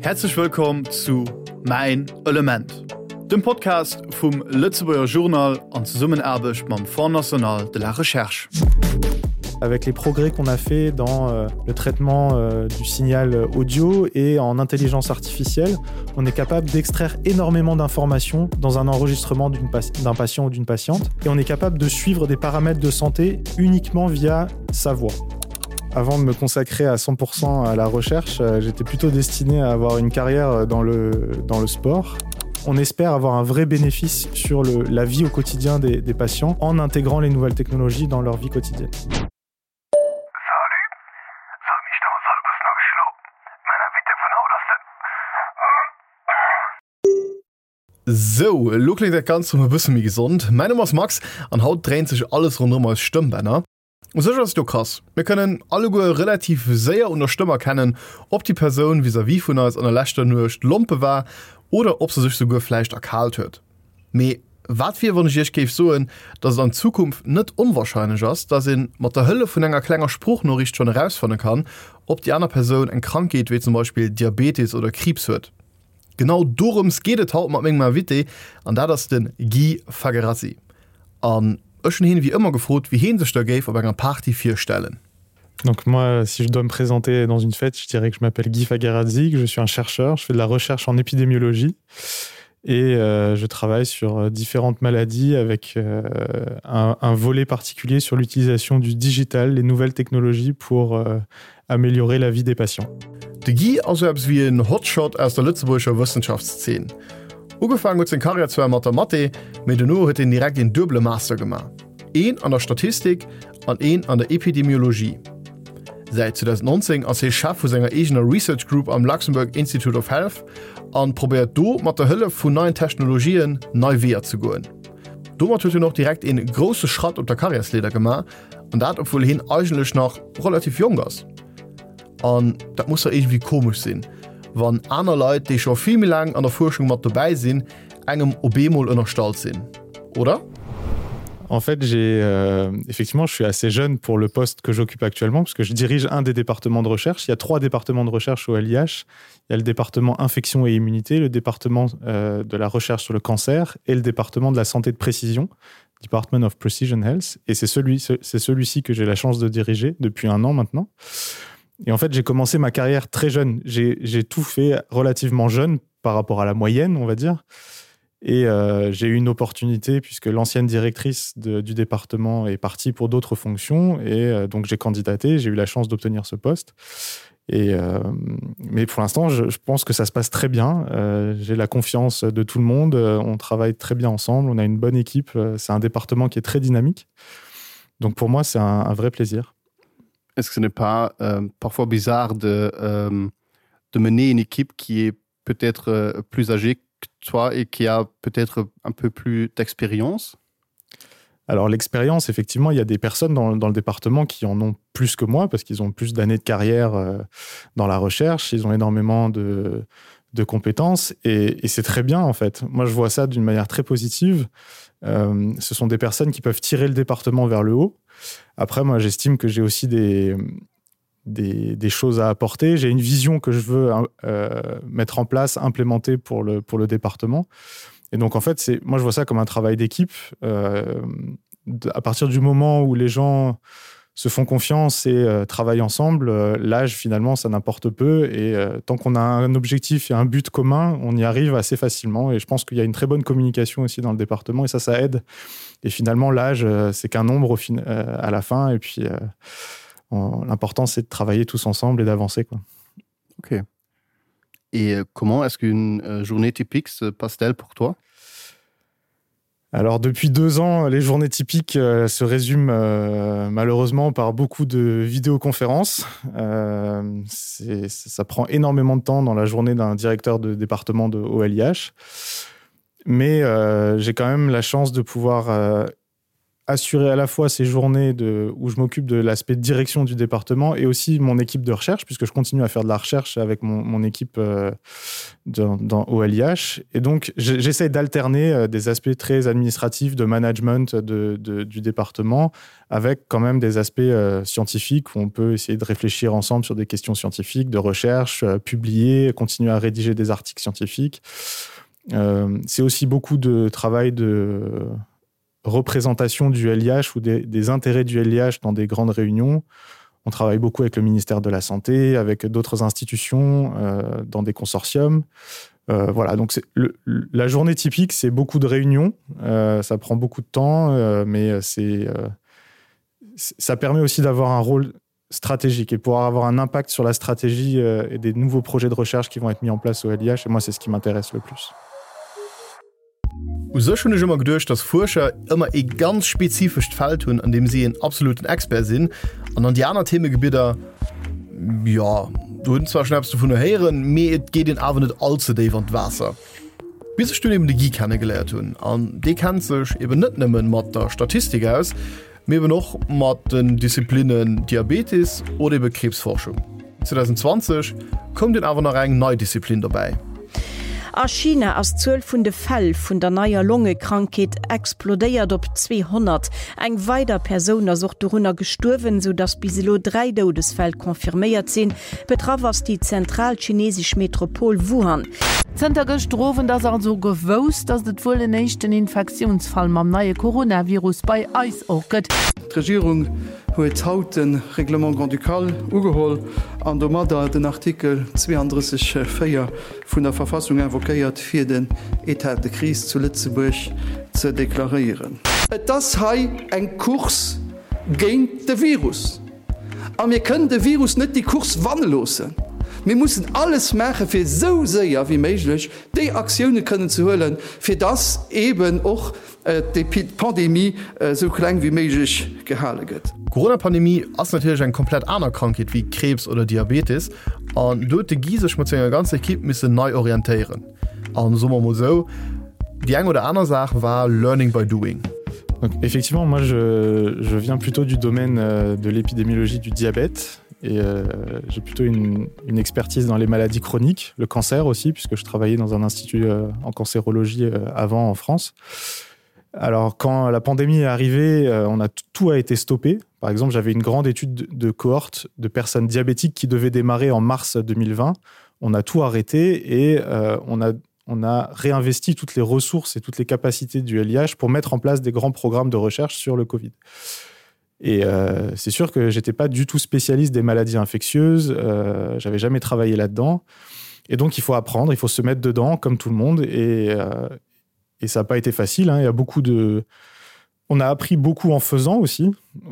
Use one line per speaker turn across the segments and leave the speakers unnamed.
Häerzlech wëllkomm zu Mäin Element, dem Podcast vum Lëtzebuerger Journal an Zesummenaarbecht mam Fonds national de la recherche.
Avec les progrès qu'on a fait dans euh, le traitement euh, du signal audio et en intelligence artificielle, on est capable d'extraire énormément d'informations dans un enregistrement d'un patient ou d'une patiente et on est capable de suivre des paramètres de santé uniquement via sa voix. Avant de me consacrer à 100% à la recherche, euh, j'étais plutôt destiné à avoir une carrière euh, dans le, dans le sport. On espère avoir un vrai bénéfice sur le, la vie au quotidien des, des patients en intégrant les nouvelles technologies dans leur vie quotidienne.
Sou, elo kléngt dat Ganzt rëm e bësse méi gesond. Mäin Numm ass Max an haut dréint sech alles ronderëm eis Stëmmbänner. U sech ass et jo krass, mir kënnen alleguer relativ séier un der Stëmm erkennen, ob déi Persoun vis-à-vis vun eis an der leschter Nuecht lompe war oder ob se sech souguer vläicht erkaalt huet. Mee wat wier, wann ech iech géif soen, dass et an Zukunft net onwarscheinlech ass, dass ee mat der Hëllef vun enger klenger Sproochnoriicht schonn erausfanne kann, ob déi aner Persoun eng Krankheet wéi zum Beispill Diabetes oder Kriibs huet? Genau dorëms geet et haut mat mengem Invité, an dat ass de Guy Fagherazzi. An ech hunn hien wéi ëmmer gefrot, wéi heen sech da géif op enger Party virstellen.
Donc moi, si je dois me présenter dans une fête, je dirais que je m'appelle Guy Fagherazzi, que je suis un chercheur, je fais de la recherche en épidémiologie et euh, je travaille sur euh, différentes maladies avec euh, un, un volet particulier sur l'utilisation du digital, les nouvelles technologies pour euh, améliorer la vie des patients.
De Guy ass sou eppes wéi en Hotshot aus der lëtzebuergescher Wëssenschaftszeen. Ugefaangen huet seng Karriär zwar mat der Mathé, mee dono huet hien direkt een duebele Master gemaach, een an der Statistik an een an der Epidemiologie. Säit 2019 ass hie Chef vu senger eegener Research Group am Luxembourg Institute of Health an probéiert do mat der Hëllef vun neien Technologien nei Weeër ze goen. Domat huet hien och direkt een grousse Schratt op der Karriärsleeder gemaach, an dat obwuel hien eigentlech nach relativ jonk ass. An dat muss jo iergendwéi komesch sinn, wann aner Leit, déi scho vill méi laang an der Fuerschung mat dobäi sinn, engem op eemol ënnerstallt sinn, oder?
En fait, j'ai euh, effectivement, je suis assez jeune pour le poste que j'occupe actuellement parce que je dirige un des départements de recherche. Il y a trois départements de recherche au LIH. Il y a le département infection et immunité, le département euh, de la recherche sur le cancer et le département de la santé de précision, Department of Precision Health. Et c'est celui, c'est celui-ci que j'ai la chance de diriger depuis un an maintenant. Et en fait, j'ai commencé ma carrière très jeune. J'ai tout fait relativement jeune par rapport à la moyenne, on va dire. Et euh, j'ai eu une opportunité puisque l'ancienne directrice de, du département est partie pour d'autres fonctions et euh, donc j'ai candidaté, j'ai eu la chance d'obtenir ce poste. Et euh, mais pour l'instant, je, je pense que ça se passe très bien. Euh, j'ai la confiance de tout le monde, euh, on travaille très bien ensemble, on a une bonne équipe, euh, c'est un département qui est très dynamique. Donc pour moi, c'est un, un vrai plaisir.
Est-ce que ce n'est pas euh, parfois bizarre de, euh, de mener une équipe qui est peut-être euh, plus âgée que toi et qui a peut-être un peu plus d'expérience?
Alors l'expérience, effectivement, il y a des personnes dans, dans le département qui en ont plus que moi parce qu'ils ont plus d'années de carrière euh, dans la recherche, ils ont énormément de, de compétences et, et c'est très bien en fait. Moi, je vois ça d'une manière très positive. Euh, ce sont des personnes qui peuvent tirer le département vers le haut. Après, moi, j'estime que j'ai aussi des, des, des choses à apporter. J'ai une vision que je veux euh, mettre en place, implémenter pour le, pour le département. Et donc en fait, c'est moi je vois ça comme un travail d'équipe. Euh, à partir du moment où les gens se font confiance et euh, travaillent ensemble, euh, l'âge finalement ça n'importe peu et euh, tant qu'on a un objectif et un but commun, on y arrive assez facilement et je pense qu'il y a une très bonne communication aussi dans le département et ça ça aide. Et finalement l'âge euh, c'est qu'un nombre au fin, euh, à la fin et puis euh, l'important c'est de travailler tous ensemble et d'avancer quoi.
Ok. Et euh, comment est-ce qu'une euh, journée typique se passe-t-elle pour toi?
Alors depuis deux ans, les journées typiques euh, se résument euh, malheureusement par beaucoup de vidéoconférences. Euh, ça prend énormément de temps dans la journée d'un directeur de département de OLIH. Mais euh, j'ai quand même la chance de pouvoir euh, assurer à la fois ces journées de, où je m'occupe de l'aspect direction du département et aussi mon équipe de recherche, puisque je continue à faire de la recherche avec mon, mon équipe euh, dans, dans OLIH. Et donc j'essaie d'alterner euh, des aspects très administratifs de management de, de, du département avec quand même des aspects euh, scientifiques où on peut essayer de réfléchir ensemble sur des questions scientifiques, de recherche, euh, publier, continuer à rédiger des articles scientifiques. Euh, C'est aussi beaucoup de travail de représentation du LIH ou des, des intérêts du LIH dans des grandes réunions. On travaille beaucoup avec le ministère de la Santé, avec d'autres institutions, euh, dans des consortiums. Euh, voilà, donc le, la journée typique, c'est beaucoup de réunions, euh, ça prend beaucoup de temps, euh, mais c'est euh, ça permet aussi d'avoir un rôle stratégique et pouvoir avoir un impact sur la stratégie euh, et des nouveaux projets de recherche qui vont être mis en place au LIH et moi c'est ce qui m'intéresse le plus.
U sech hunn ech ëmmer geduecht, dass Fuerscher ëmmer ee ganz spezifescht Feld hunn, an deem si een absoluten Expert sinn, an an déi aner Themegebidder, jo, do huet en zwar schonn eppes dovunner héieren, mee et geet een awer net all ze déif an d'Waasser. Bis ech dunn eben de Guy kennegeléiert hunn, an dee kennt sech eben net nëmmen mat der Statistik aus, mee eben och mat den Disziplinnen Diabetes oder ebe Kriibsforschung. 2020 koum dunn awer nach eng nei Disziplin dobäi.
A China ass d'Zuel vun de Fäll vun der neier Longekrankheet explodéiert op 200. Eng weider Persoun ass och dorunner gestuerwen, sou datt bis elo 3 Doudesfäll confirméiert sinn. Betraff ass déi zentral chinesesch Metropol Wuhan.
Zënter gëschter Owend ass also gewousst, datt et wuel en éischten Infektiounsfall mam neie Coronavirus bei eis och gëtt.
D'Regierung huet haut de Règlement grand-ducal ugeholl an domadder den Artikel 32, 4 vun der Verfassung invoquéiert, fir den État de crise zu Lëtzebuerg ze deklaréieren. Et ass hei eng Course géint de Virus. A mir kënnen de Virus net déi Course wanne loossen. Mir mussen alles maachen, fir esou séier wéi méiglech déi Aktioune kënnen ze huelen, fir dass eeben och d'Pandemie esou kleng wéi méiglech gehale gëtt.
D'Corona-Pandemie ass natierlech eng komplett aner Krankheet wéi Kriibs oder Diabetes an do huet de Guy sech mat senger ganzer Ekipp missen nei orientéieren. An soe mer mol esou, déi eng oder aner Saach war learning by doing.
Donc, effectivement, moi je, je viens plutôt du domaine euh, de l'épidémiologie du diabète et euh, j'ai plutôt une, une expertise dans les maladies chroniques, le cancer aussi, puisque je travaillais dans un institut euh, en cancérologie euh, avant en France. Alors quand la pandémie est arrivée, euh, on a tout a été stoppé. Par exemple, j'avais une grande étude de cohorte de personnes diabétiques qui devait démarrer en mars 2020. On a tout arrêté et euh, on a on a réinvesti toutes les ressources et toutes les capacités du LIH pour mettre en place des grands programmes de recherche sur le Covid. Et euh, c'est sûr que j'étais pas du tout spécialiste des maladies infectieuses, euh, j'avais jamais travaillé là-dedans. Et donc il faut apprendre, il faut se mettre dedans comme tout le monde et, euh, et ça n'a pas été facile. Hein. Il y a beaucoup de On a appris beaucoup en faisant aussi,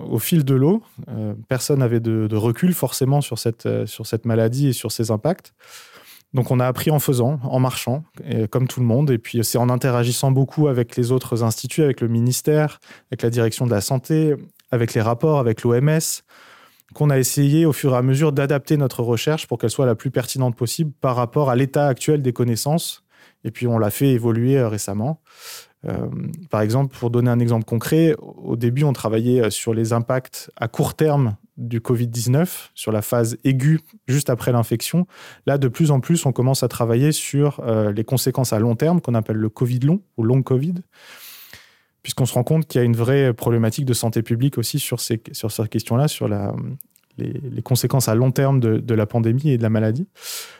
au fil de l'eau. Euh, personne n'avait de, de recul forcément sur cette, euh, sur cette maladie et sur ses impacts. Donc on a appris en faisant, en marchant, et, comme tout le monde. Et puis c'est en interagissant beaucoup avec les autres instituts, avec le ministère, avec la direction de la santé, avec les rapports, avec l'OMS, qu'on a essayé au fur et à mesure d'adapter notre recherche pour qu'elle soit la plus pertinente possible par rapport à l'état actuel des connaissances. Et puis on l'a fait évoluer euh, récemment. Euh, par exemple, pour donner un exemple concret, au début, on travaillait euh, sur les impacts à court terme du Covid-19, sur la phase aiguë juste après l'infection. Là, de plus en plus, on commence à travailler sur euh, les conséquences à long terme qu'on appelle le Covid long ou long Covid, puisqu'on se rend compte qu'il y a une vraie problématique de santé publique aussi sur ces, sur cette question-là, sur la, les, les conséquences à long terme de, de la pandémie et de la maladie.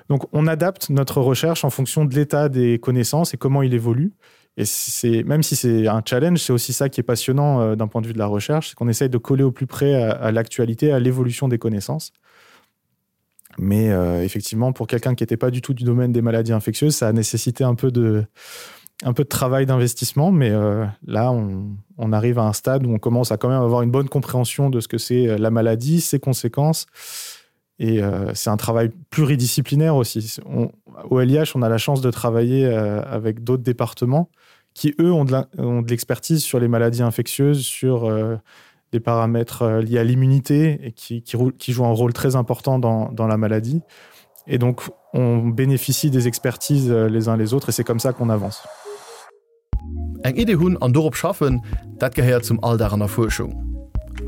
Donc on adapte notre recherche en fonction de l'état des connaissances et comment il évolue. Et c'est même si c'est un challenge, c'est aussi ça qui est passionnant euh, d'un point de vue de la recherche, c'est qu'on essaye de coller au plus près à, à l'actualité, à l'évolution des connaissances. Mais euh, effectivement, pour quelqu'un qui n'était pas du tout du domaine des maladies infectieuses, ça a nécessité un peu de, un peu de travail d'investissement, mais euh, là, on, on arrive à un stade où on commence à quand même avoir une bonne compréhension de ce que c'est euh, la maladie, ses conséquences. Et euh, c'est un travail pluridisciplinaire aussi. On, au LIH, on a la chance de travailler euh, avec d'autres départements qui, eux, ont de l'expertise sur les maladies infectieuses, sur euh, des paramètres euh, liés à l'immunité et qui, qui, qui jouent un rôle très important dans, dans la maladie. Et donc, on bénéficie des expertises euh, les uns les autres et c'est comme ça qu'on avance.
Eng Idee hunn an dorop schaffen, dat gehéiert zum Alldag an der Fuerschung.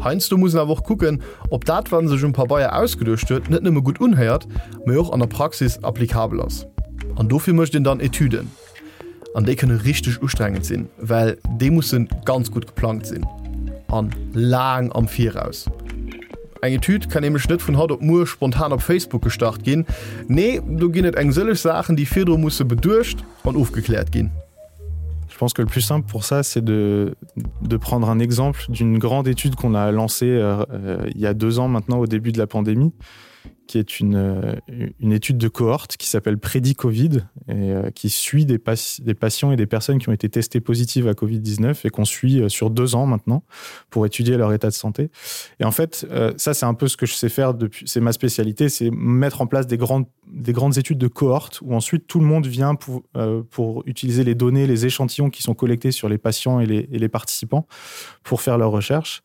Heiansdo muss een awer och kucken, ob dat, wat een sech um Pabeier ausgeduecht huet, net nëmme gutt unhéiert, mee och an der Praxis applikabel ass. An dofir mécht een dann Etüden. An déi kënne richteg ustrengend sinn, well déi musse ganz gutt geplangt sinn. An laang am Viraus. Eng Etüd kann nämlech net vun haut op muer spontan op Facebook gestart ginn. Nee, do ginn et eng sëlleg Saachen, déi virdru musse beduecht an ofgekläert ginn.
Je pense que le plus simple pour ça, c'est de, de prendre un exemple d'une grande étude qu'on a lancée euh, euh, il y a deux ans maintenant au début de la pandémie, qui est une, euh, une étude de cohorte qui s'appelle Prédit Covid et euh, qui suit des, pa des patients et des personnes qui ont été testées positives à Covid-19 et qu'on suit euh, sur deux ans maintenant pour étudier leur état de santé. Et en fait, euh, ça c'est un peu ce que je sais faire depuis c'est ma spécialité, c'est mettre en place des grandes, des grandes études de cohorte où ensuite tout le monde vient pour, euh, pour utiliser les données, les échantillons qui sont collectés sur les patients et les, et les participants pour faire leurs recherches.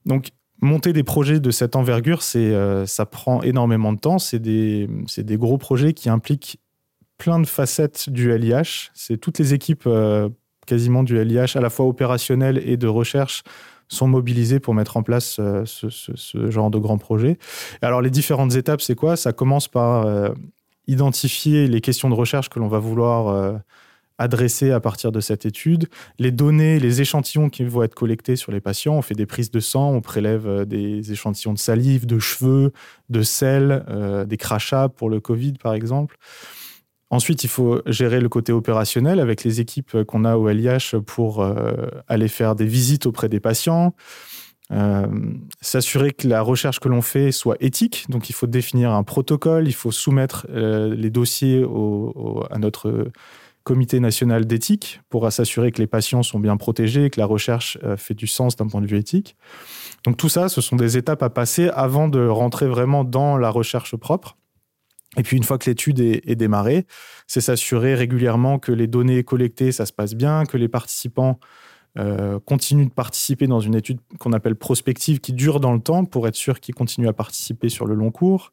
Donc monter des projets de cette envergure, c'est euh, ça prend énormément de temps, c'est des, des gros projets qui impliquent plein de facettes du LIH, c'est toutes les équipes euh, quasiment du LIH à la fois opérationnel et de recherche sont mobilisées pour mettre en place euh, ce, ce, ce genre de grands projets. Alors les différentes étapes, c'est quoi Ça commence par euh, identifier les questions de recherche que l'on va vouloir euh, adresser à partir de cette étude, les données, les échantillons qui vont être collectés sur les patients. On fait des prises de sang, on prélève euh, des échantillons de salive, de cheveux, de sel, euh, des crachats pour le Covid par exemple. Ensuite, il faut gérer le côté opérationnel avec les équipes qu'on a au LIH pour euh, aller faire des visites auprès des patients, euh, s'assurer que la recherche que l'on fait soit éthique. Donc il faut définir un protocole, il faut soumettre euh, les dossiers au, au, à notre comité national d'éthique pour s'assurer que les patients sont bien protégés, que la recherche euh, fait du sens d'un point de vue éthique. Donc tout ça, ce sont des étapes à passer avant de rentrer vraiment dans la recherche propre. Et puis une fois que l'étude est, est démarrée, c'est s'assurer régulièrement que les données collectées, ça se passe bien, que les participants euh, continuent de participer dans une étude qu'on appelle prospective qui dure dans le temps pour être sûr qu'ils continuent à participer sur le long cours.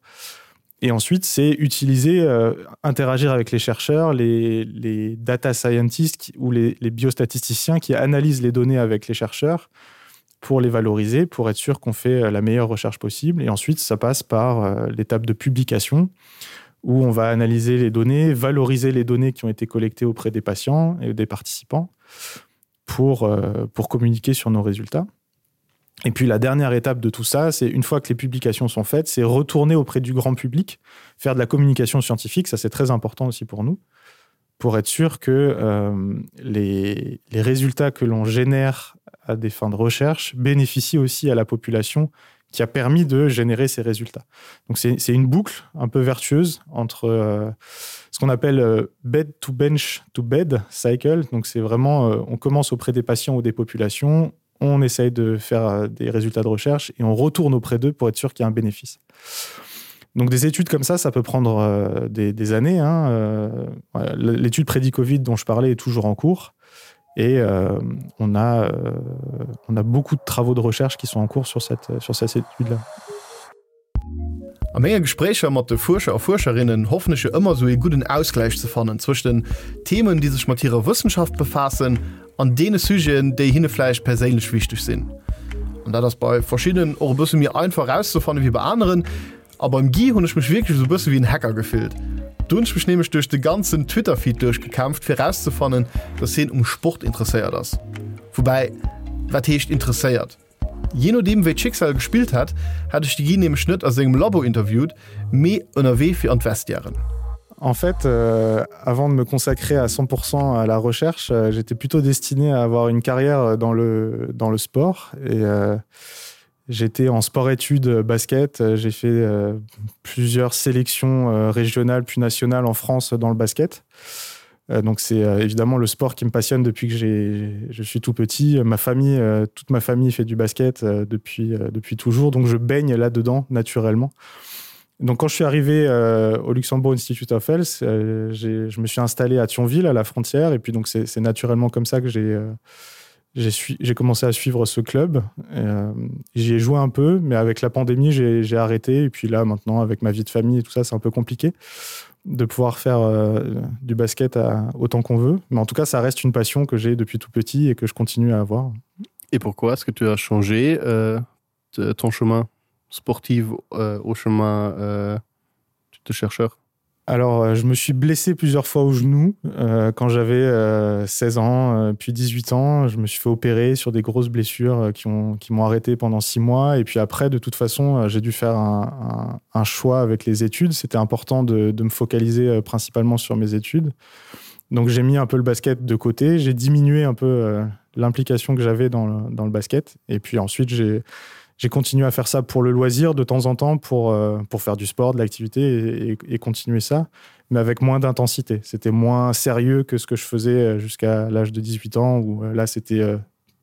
Et ensuite, c'est utiliser, euh, interagir avec les chercheurs, les, les data scientists qui, ou les, les biostatisticiens qui analysent les données avec les chercheurs pour les valoriser, pour être sûr qu'on fait euh, la meilleure recherche possible. Et ensuite, ça passe par euh, l'étape de publication où on va analyser les données, valoriser les données qui ont été collectées auprès des patients et des participants pour, euh, pour communiquer sur nos résultats. Et puis la dernière étape de tout ça, c'est une fois que les publications sont faites, c'est retourner auprès du grand public, faire de la communication scientifique, ça c'est très important aussi pour nous, pour être sûr que euh, les, les résultats que l'on génère à des fins de recherche bénéficient aussi à la population qui a permis de générer ces résultats. Donc c'est une boucle un peu vertueuse entre euh, ce qu'on appelle euh, bed to bench to bed cycle. Donc c'est vraiment euh, on commence auprès des patients ou des populations, on essaye de faire euh, des résultats de recherche et on retourne auprès d'eux pour être sûr qu'il y a un bénéfice. Donc des études comme ça, ça peut prendre euh, des, des années. Hein. Euh, L'étude prédit-Covid dont je parlais est toujours en cours. Et euh, on, a, euh, on a beaucoup de travaux de recherche qui sont en cours sur cette, sur cette étude-là.
A menge Gespréicher mat de Fuerscher a Fuerscherinnen hoffen ech jo ëmmer esou ee gudden Ausgläich ze fannen zwëscht den Themen, déi sech mat hirer Wëssenschaft befaassen, an deene Sujeten, déi hinne vläicht perséinlech wichteg sinn. An dat ass bei verschiddenen och e bësse méi einfach erauszefanne wéi bei aneren. A beim Guy hunn ech mech wierklech esou e bësse wéi en Hacker gefillt. Do hunn ech mech nämlech duerch de ganzen Twitter-Feed duerchgekämpft, fir erauszefannen, dass hien um Sport interesséiert ass. Woubäi, wat heescht interesséiert? Jee nodeem wéi d'Schicksal gespillt hätt, hätt ech de Guy nämlech net a sengem Labo interviewt, mee ënnerwee fir an d'Vestiairen.
En fait, euh, avant de me consacrer à 100% à la recherche, euh, j'étais plutôt destiné à avoir une carrière dans le, dans le sport et euh, j'étais en sport-études basket, j'ai fait euh, plusieurs sélections euh, régionales puis nationales en France dans le basket. Euh, donc c'est euh, évidemment le sport qui me passionne depuis que je suis tout petit. Ma famille, euh, toute ma famille fait du basket euh, depuis, euh, depuis toujours, donc je baigne là-dedans naturellement. Donc quand je suis arrivé euh, au Luxembourg Institute of Health, euh, je me suis installé à Thionville, à la frontière, et puis donc c'est naturellement comme ça que j'ai euh, j'ai commencé à suivre ce club. Euh, J'y ai joué un peu, mais avec la pandémie, j'ai arrêté. Et puis là, maintenant, avec ma vie de famille et tout ça, c'est un peu compliqué de pouvoir faire euh, du basket à, autant qu'on veut. Mais en tout cas, ça reste une passion que j'ai depuis tout petit et que je continue à avoir.
Et pourquoi est-ce que tu as changé euh, ton chemin sportif euh, au chemin euh, de chercheur?
Alors euh, je me suis blessé plusieurs fois au genou euh, quand j'avais euh, 16 ans euh, puis 18 ans je me suis fait opérer sur des grosses blessures euh, qui ont qui m'ont arrêté pendant six mois et puis après de toute façon euh, j'ai dû faire un, un, un choix avec les études c'était important de, de me focaliser euh, principalement sur mes études donc j'ai mis un peu le basket de côté j'ai diminué un peu euh, l'implication que j'avais dans, le, dans le basket et puis ensuite j'ai j'ai continué à faire ça pour le loisir de temps en temps pour, euh, pour faire du sport, de l'activité et, et, et continuer ça, mais avec moins d'intensité. C'était moins sérieux que ce que je faisais euh, jusqu'à l'âge de 18 ans où euh, là c'était euh,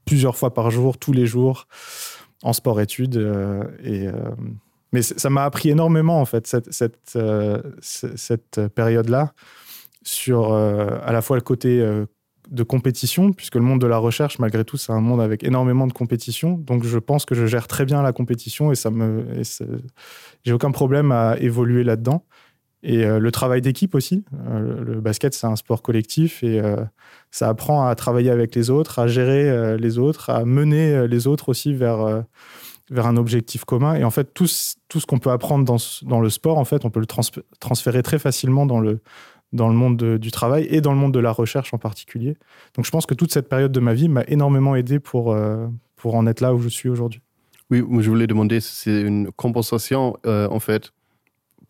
plusieurs fois par jour, tous les jours en sport-études euh, et euh, mais ça m'a appris énormément en fait cette, cette, euh, cette période là sur euh, à la fois le côté euh, de compétition puisque le monde de la recherche malgré tout c'est un monde avec énormément de compétition donc je pense que je gère très bien la compétition et ça me j'ai aucun problème à évoluer là dedans et euh, le travail d'équipe aussi euh, le basket c'est un sport collectif et euh, ça apprend à travailler avec les autres à gérer euh, les autres à mener euh, les autres aussi vers euh, vers un objectif commun et en fait tout tout ce qu'on peut apprendre dans, dans le sport en fait on peut le trans transférer très facilement dans le dans le monde de, du travail et dans le monde de la recherche en particulier. Donc je pense que toute cette période de ma vie m'a énormément aidé pour, euh, pour en être là où je suis aujourd'hui.
Oui, je voulais demander si c'est une compensation euh, en fait.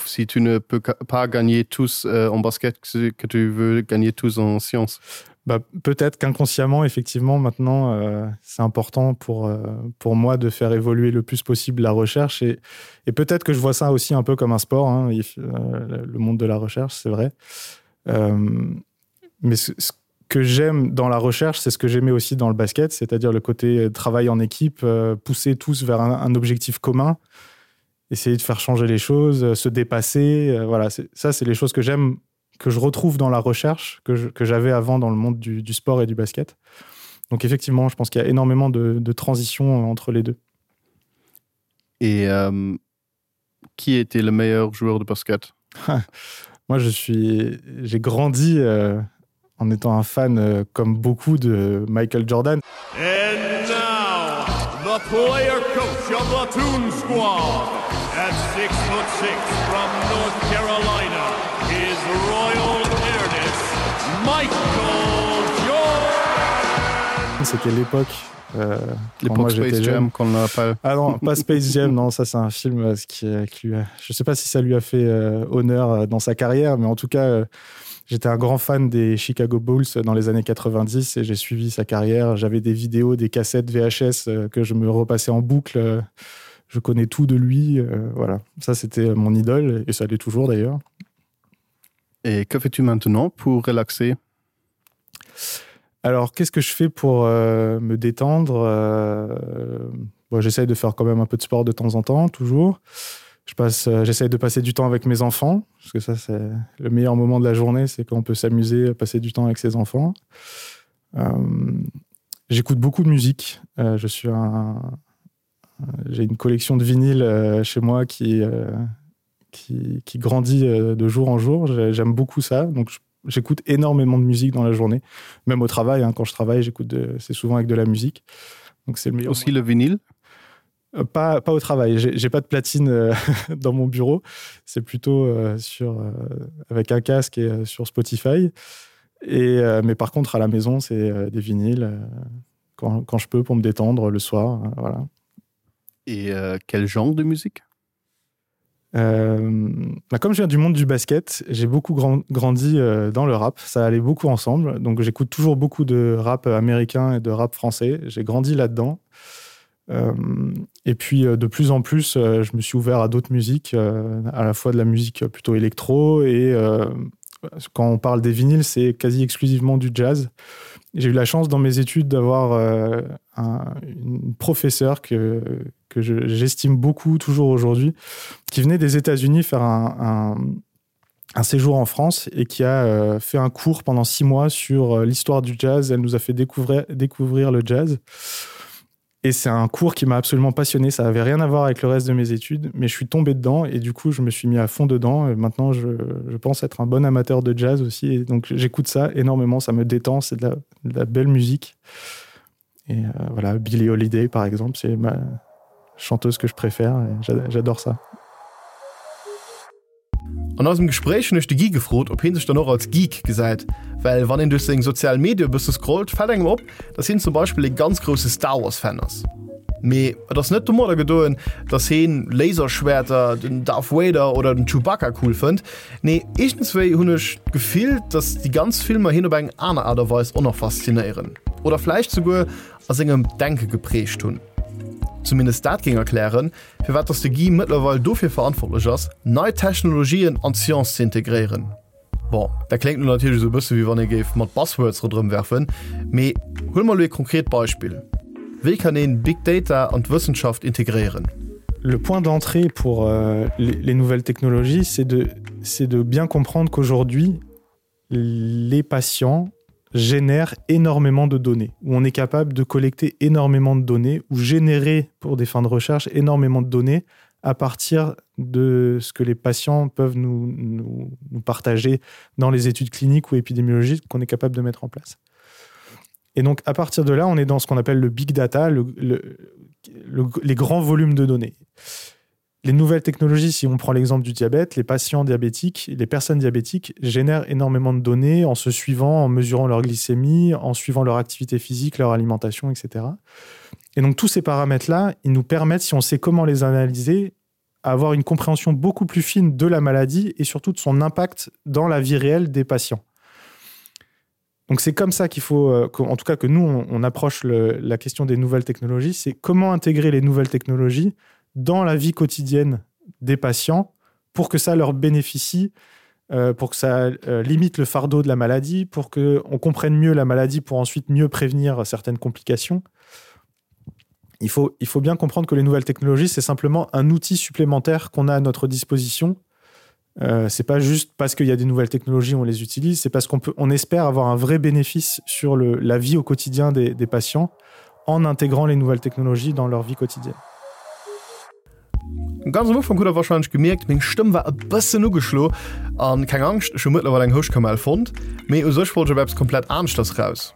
Si tu ne peux pas gagner tous euh, en basket que tu veux gagner tous en sciences.
Bah, peut-être qu'inconsciemment effectivement maintenant euh, c'est important pour, euh, pour moi de faire évoluer le plus possible la recherche et, et peut-être que je vois ça aussi un peu comme un sport hein, il, euh, le monde de la recherche c'est vrai euh, mais ce, ce que j'aime dans la recherche c'est ce que j'aimais aussi dans le basket c'est à dire le côté euh, travail en équipe euh, pousser tous vers un, un objectif commun essayer de faire changer les choses euh, se dépasser euh, voilà ça c'est les choses que j'aime que je retrouve dans la recherche que j'avais avant dans le monde du, du sport et du basket. Donc effectivement, je pense qu'il y a énormément de, de transitions entre les deux.
Et euh, qui était le meilleur joueur de basket
Moi je suis j'ai grandi euh, en étant un fan euh, comme beaucoup de Michael Jordan.
And now, the player coach of the Toon Squad at six foot six from North Carolina, his Royal Airness, Michael Jordan.
C'était l'époque euh,
l'époque Space Jam qu'on appelle.
Ah non, pas Space Jam, non, ça c'est un film euh, qui, euh, qui lui a... je sais pas si ça lui a fait euh, honneur euh, dans sa carrière, mais en tout cas, euh, J'étais un grand fan des Chicago Bulls dans les années 90 et j'ai suivi sa carrière. J'avais des vidéos, des cassettes VHS euh, que je me repassais en boucle. Je connais tout de lui. Euh, voilà, ça c'était mon idole et ça l'est toujours d'ailleurs.
Et que fais-tu maintenant pour relaxer?
Alors qu'est-ce que je fais pour euh, me détendre euh, bon, J'essaye de faire quand même un peu de sport de temps en temps, toujours. Je passe euh, j'essaye de passer du temps avec mes enfants parce que ça c'est le meilleur moment de la journée c'est qu'on peut s'amuser passer du temps avec ses enfants euh, j'écoute beaucoup de musique euh, je suis un j'ai une collection de vinyles euh, chez moi qui euh, qui, qui grandit euh, de jour en jour j'aime beaucoup ça donc j'écoute énormément de musique dans la journée même au travail hein, quand je travaille j'écoute c'est souvent avec de la musique donc c'est le meilleur
aussi le vinyle
Euh, pas, pas au travail j'ai pas de platine euh, dans mon bureau c'est plutôt euh, sur euh, avec un casque et euh, sur Spotify et euh, mais par contre à la maison c'est euh, des vinyles euh, quand, quand je peux pour me détendre le soir euh, voilà
et euh, quel genre de musique
euh, bah comme je viens du monde du basket j'ai beaucoup grand, grandi euh, dans le rap ça allait beaucoup ensemble donc j'écoute toujours beaucoup de rap américain et de rap français j'ai grandi là dedans et euh, et puis euh, de plus en plus euh, je me suis ouvert à d'autres musiques euh, à la fois de la musique plutôt électro et euh, quand on parle des vinyles c'est quasi exclusivement du jazz j'ai eu la chance dans mes études d'avoir euh, un, une professeure que que j'estime beaucoup toujours aujourd'hui qui venait des états unis faire un, un un séjour en France et qui a euh, fait un cours pendant six mois sur euh, l'histoire du jazz elle nous a fait découvrir découvrir le jazz et c'est un cours qui m'a absolument passionné ça avait rien à voir avec le reste de mes études mais je suis tombé dedans et du coup je me suis mis à fond dedans et maintenant je, je pense être un bon amateur de jazz aussi et donc j'écoute ça énormément ça me détend c'est de, la, de la belle musique et euh, voilà Billy Holiday par exemple c'est ma chanteuse que je préfère j'adore ça.
An eisem Gespréich hunn ech de Guy gefrot, ob hie sech dann och als Geek gesäit, well wann een duerch seng sozial Medie e bësse scrollt, fält engem op, dass hien zum Beispill ee ganz grousse Star Wars Fan ass. Mee et ass net domadder gedoen, dass heen Laserschwäerter, den Darth Vader oder den Chewbacca cool fënnt. Nee, iergendswéi hunn ech d'Gefill, dass déi ganz Filmer hien op eng aner Aart a Weis och nach faszinéieren oder vläicht souguer a sengem Denke geprägt hunn. Zumindest dat géing erklären, firwat dass de Guy mëttlerweil dofir verantwortlech ass, nei Technologien an d'Science ze integréieren. Bon, dat kléngt lo natierlech esou e bësse wéi wann ee géif mat Buzzwords ronderëm werfen, mee huele mer elo ee konkret Beispill, Wéi kann een Big Data an d'Wëssenschaft integréieren?
Le point d'entrée pour euh, les nouvelles technologies, c'est de, de bien comprendre qu'aujourd'hui, les patients génèrent énormément de données, où on est capable de collecter énormément de données ou générer pour des fins de recherche énormément de données à partir de ce que les patients peuvent nous, nous, nous partager dans les études cliniques ou épidémiologiques qu'on est capable de mettre en place. Et donc à partir de là, on est dans ce qu'on appelle le big data, le, le, le, les grands volumes de données. Les nouvelles technologies, si on prend l'exemple du diabète, les patients diabétiques, les personnes diabétiques génèrent énormément de données en se suivant, en mesurant leur glycémie, en suivant leur activité physique, leur alimentation, etc. Et donc tous ces paramètres-là, ils nous permettent, si on sait comment les analyser, avoir une compréhension beaucoup plus fine de la maladie et surtout de son impact dans la vie réelle des patients. Donc c'est comme ça qu'il faut, euh, en tout cas que nous, on, on approche le, la question des nouvelles technologies, c'est comment intégrer les nouvelles technologies dans la vie quotidienne des patients pour que ça leur bénéficie, euh, pour que ça euh, limite le fardeau de la maladie, pour qu'on comprenne mieux la maladie pour ensuite mieux prévenir certaines complications. Il faut, il faut bien comprendre que les nouvelles technologies, c'est simplement un outil supplémentaire qu'on a à notre disposition. Euh, c'est pas juste parce qu'il y a des nouvelles technologies on les utilise, c'est parce qu'on peut on espère avoir un vrai bénéfice sur le, la vie au quotidien des, des patients en intégrant les nouvelles technologies dans leur vie quotidienne.
Ganz am Ufank hutt der warscheinlech gemierkt, meng Stëmm war e bëssen ugeschlo. An keng Angscht, ech hu mëttlerweil eng Houschtkamell fonnt. Mee u sech wollt ech op eppes komplett aneschters raus.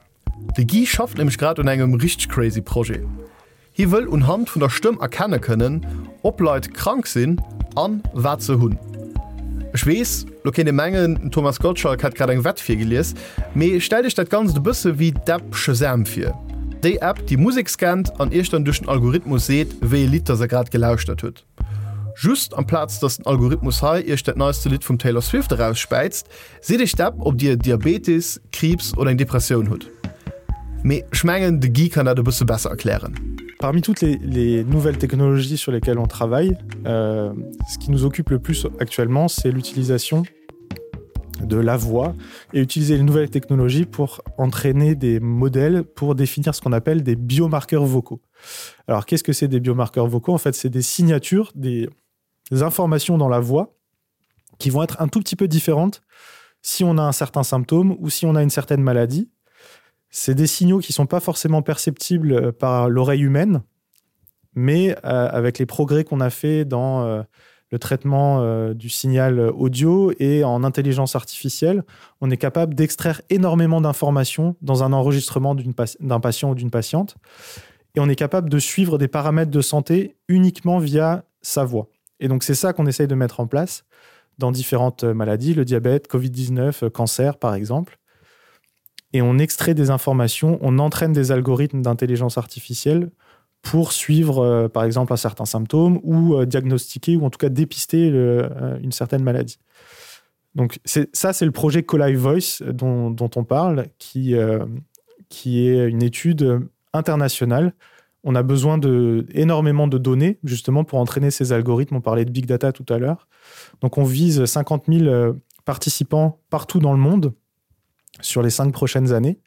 De Guy schafft nämlech grad un engem richteg crazy Projet. Hie wëll unhand vun der Stëmm erkenne kënnen, ob Leit krank sinn an wat se hunn. Ech weess, lo kéint ee mengen, den Thomas Gottschalk hätt grad eng Wett virgelies, mee stellt iech dat Ganzt e bësse wéi d'App Shazam vir. Déi App, déi Musek scannt an iech dann duerch den Algorithmus seet, wéi ee Lidd dass der grad gelauschtert hutt. Just amplaz dass den Algorithmus hei iech dat neiste Lidd vum Taylor Swift erausspäizt, seet iech d'App, ob dir Diabetes, Kriibs oder eng Depressioun hutt. Mee ech mengen, de Guy kann dat e bësse besser erklären.
Parmi toutes les, les nouvelles technologies sur lesquelles on travaille, euh, ce qui nous occupe le plus actuellement, c'est l'utilisation de la voix et utiliser les nouvelles technologies pour entraîner des modèles pour définir ce qu'on appelle des biomarqueurs vocaux. Alors qu'est-ce que c'est des biomarqueurs vocaux En fait, c'est des signatures, des, des informations dans la voix qui vont être un tout petit peu différentes si on a un certain symptôme ou si on a une certaine maladie. C'est des signaux qui ne sont pas forcément perceptibles euh, par l'oreille humaine, mais euh, avec les progrès qu'on a fait dans euh, le traitement euh, du signal audio et en intelligence artificielle, on est capable d'extraire énormément d'informations dans un enregistrement d'un patient ou d'une patiente. Et on est capable de suivre des paramètres de santé uniquement via sa voix. Et donc c'est ça qu'on essaye de mettre en place dans différentes maladies, le diabète, Covid-19, euh, cancer par exemple. Et on extrait des informations, on entraîne des algorithmes d'intelligence artificielle pour suivre euh, par exemple un certain symptôme ou euh, diagnostiquer ou en tout cas dépister le, euh, une certaine maladie. Donc ça c'est le projet Coli Voice dont, dont on parle qui, euh, qui est une étude internationale. On a besoin de énormément de données justement pour entraîner ces algorithmes. On parlait de big data tout à l'heure. Donc on vise 50 000 euh, participants partout dans le monde sur les cinq prochaines années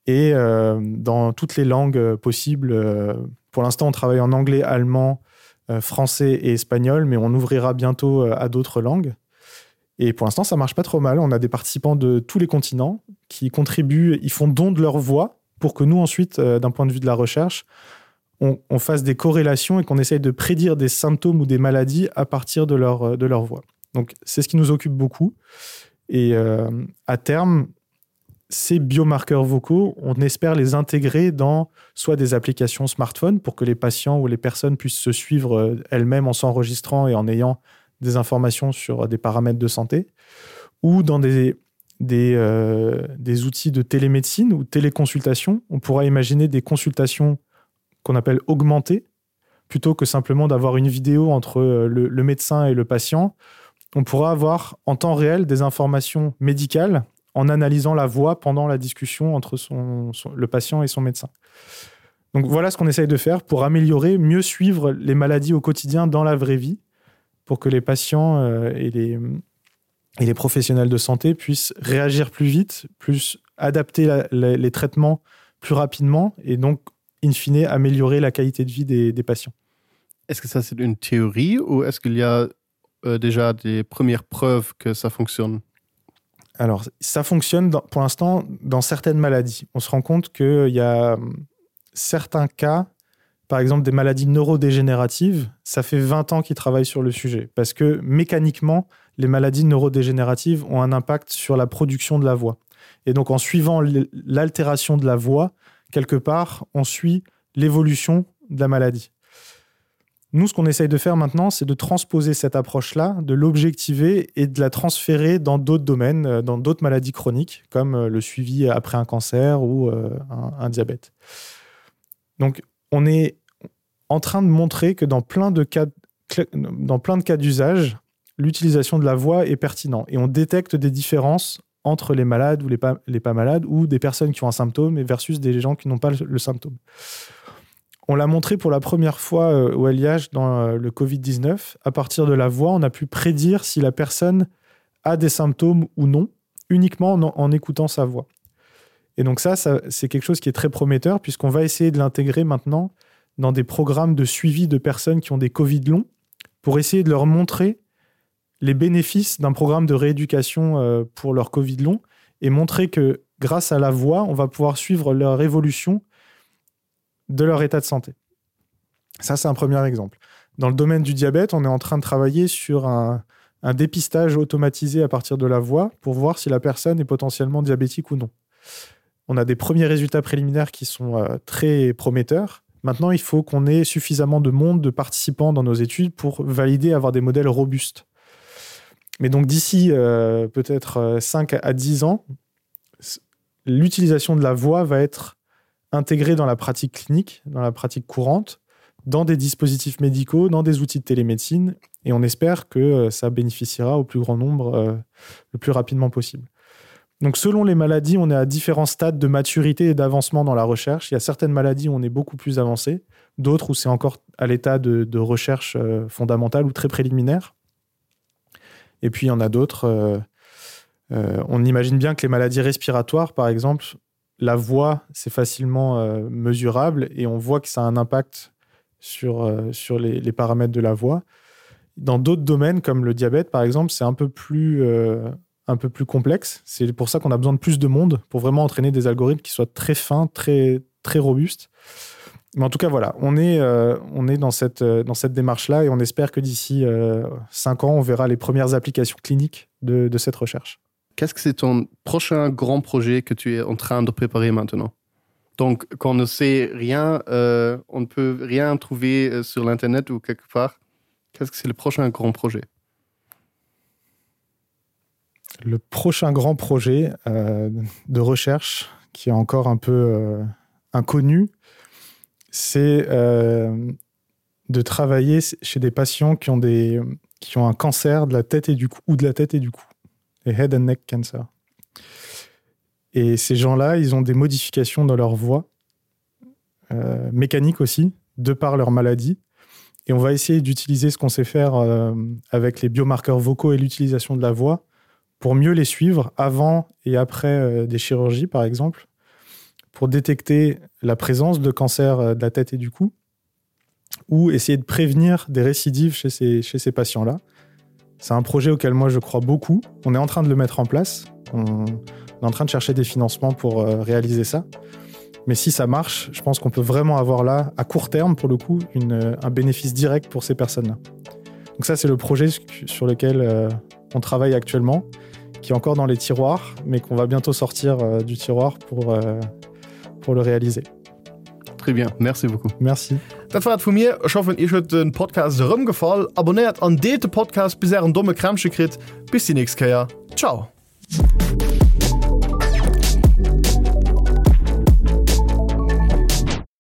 et euh, dans toutes les langues euh, possibles. Euh, pour l'instant, on travaille en anglais, allemand, euh, français et espagnol, mais on ouvrira bientôt euh, à d'autres langues. Et pour l'instant, ça marche pas trop mal. On a des participants de tous les continents qui contribuent, ils font don de leur voix pour que nous ensuite, euh, d'un point de vue de la recherche, on, on fasse des corrélations et qu'on essaye de prédire des symptômes ou des maladies à partir de leur, euh, de leur voix. Donc c'est ce qui nous occupe beaucoup. Et euh, à terme, ces biomarqueurs vocaux, on espère les intégrer dans soit des applications smartphone pour que les patients ou les personnes puissent se suivre euh, elles-mêmes en s'enregistrant et en ayant des informations sur des paramètres de santé ou dans des, des, euh, des outils de télémédecine ou téléconsultation. On pourra imaginer des consultations qu'on appelle augmentées plutôt que simplement d'avoir une vidéo entre euh, le, le médecin et le patient. On pourra avoir en temps réel des informations médicales en analysant la voix pendant la discussion entre son, son, le patient et son médecin. Donc voilà ce qu'on essaye de faire pour améliorer, mieux suivre les maladies au quotidien dans la vraie vie pour que les patients euh, et les, et les professionnels de santé puissent réagir plus vite, plus adapter la, la, les traitements plus rapidement et donc in fine améliorer la qualité de vie des, des patients.
Est-ce que ça c'est une théorie ou est-ce qu'il y a euh, déjà des premières preuves que ça fonctionne?
Alors ça fonctionne dans, pour l'instant dans certaines maladies. On se rend compte qu'il y a certains cas, par exemple des maladies neurodégénératives, ça fait 20 ans qu'ils travaillent sur le sujet parce que mécaniquement, les maladies neurodégénératives ont un impact sur la production de la voix. Et donc en suivant l'altération de la voix, quelque part, on suit l'évolution de la maladie. Nous, ce qu'on essaye de faire maintenant, c'est de transposer cette approche-là, de l'objectiver et de la transférer dans d'autres domaines, euh, dans d'autres maladies chroniques, comme euh, le suivi après un cancer ou euh, un, un diabète. Donc on est en train de montrer que dans plein de cas dans plein de cas d'usage, l'utilisation de la voix est pertinente et on détecte des différences entre les malades ou les pas, les pas malades ou des personnes qui ont un symptôme et versus des gens qui n'ont pas le, le symptôme. On l'a montré pour la première fois euh, au LIH dans euh, le Covid-19. À partir de la voix, on a pu prédire si la personne a des symptômes ou non, uniquement en, en écoutant sa voix. Et donc ça, ça c'est quelque chose qui est très prometteur puisqu'on va essayer de l'intégrer maintenant dans des programmes de suivi de personnes qui ont des Covid longs pour essayer de leur montrer les bénéfices d'un programme de rééducation euh, pour leur Covid long et montrer que grâce à la voix, on va pouvoir suivre leur évolution de leur état de santé. Ça, c'est un premier exemple. Dans le domaine du diabète, on est en train de travailler sur un, un dépistage automatisé à partir de la voix pour voir si la personne est potentiellement diabétique ou non. On a des premiers résultats préliminaires qui sont euh, très prometteurs. Maintenant, il faut qu'on ait suffisamment de monde de participants dans nos études pour valider, avoir des modèles robustes. Mais donc d'ici euh, peut-être 5 euh, à 10 ans, l'utilisation de la voix va être intégrée dans la pratique clinique, dans la pratique courante, dans des dispositifs médicaux, dans des outils de télémédecine, et on espère que euh, ça bénéficiera au plus grand nombre euh, le plus rapidement possible. Donc selon les maladies, on est à différents stades de maturité et d'avancement dans la recherche. Il y a certaines maladies où on est beaucoup plus avancé, d'autres où c'est encore à l'état de, de recherche euh, fondamentale ou très préliminaire. Et puis il y en a d'autres. Euh, euh, on imagine bien que les maladies respiratoires, par exemple, la voix, c'est facilement euh, mesurable et on voit que ça a un impact sur, euh, sur les, les paramètres de la voix. Dans d'autres domaines, comme le diabète, par exemple, c'est un peu plus, euh, un peu plus complexe. C'est pour ça qu'on a besoin de plus de monde pour vraiment entraîner des algorithmes qui soient très fins, très, très robustes. Mais en tout cas, voilà, on est, euh, on est dans cette, euh, dans cette démarche-là et on espère que d'ici euh, cinq ans, on verra les premières applications cliniques de, de cette recherche.
Qu'est-ce que c'est ton prochain grand projet que tu es en train de préparer maintenant? Donc, quand on ne sait rien, euh, on ne peut rien trouver euh, sur l'internet ou quelque part. Qu'est-ce que c'est le prochain grand projet?
Le prochain grand projet euh, de recherche qui est encore un peu euh, inconnu, c'est euh, de travailler chez des patients qui ont, des, qui ont un cancer de la tête et du cou ou de la tête et du cou, les head and neck cancer. Et ces gens-là, ils ont des modifications dans leur voix, euh, mécanique aussi, de par leur maladie. Et on va essayer d'utiliser ce qu'on sait faire euh, avec les biomarqueurs vocaux et l'utilisation de la voix pour mieux les suivre avant et après euh, des chirurgies, par exemple, pour détecter la présence de cancer euh, de la tête et du cou ou essayer de prévenir des récidives chez ces, chez ces patients-là. C'est un projet auquel moi je crois beaucoup. On est en train de le mettre en place. On est en train de chercher des financements pour euh, réaliser ça. Mais si ça marche, je pense qu'on peut vraiment avoir là, à court terme pour le coup, une, euh, un bénéfice direct pour ces personnes-là. Donc ça, c'est le projet sur lequel euh, on travaille actuellement, qui est encore dans les tiroirs, mais qu'on va bientôt sortir euh, du tiroir pour, euh, pour le réaliser.
Très bien, merci beaucoup.
Merci.
Dat war et vu mir. Ech hoffen iech huet de Podcast erëm gefall. Abonnéiert an deelt de Podcast bis ären domme Krämpche kritt. Bis déi nächst Kéier. Ciao.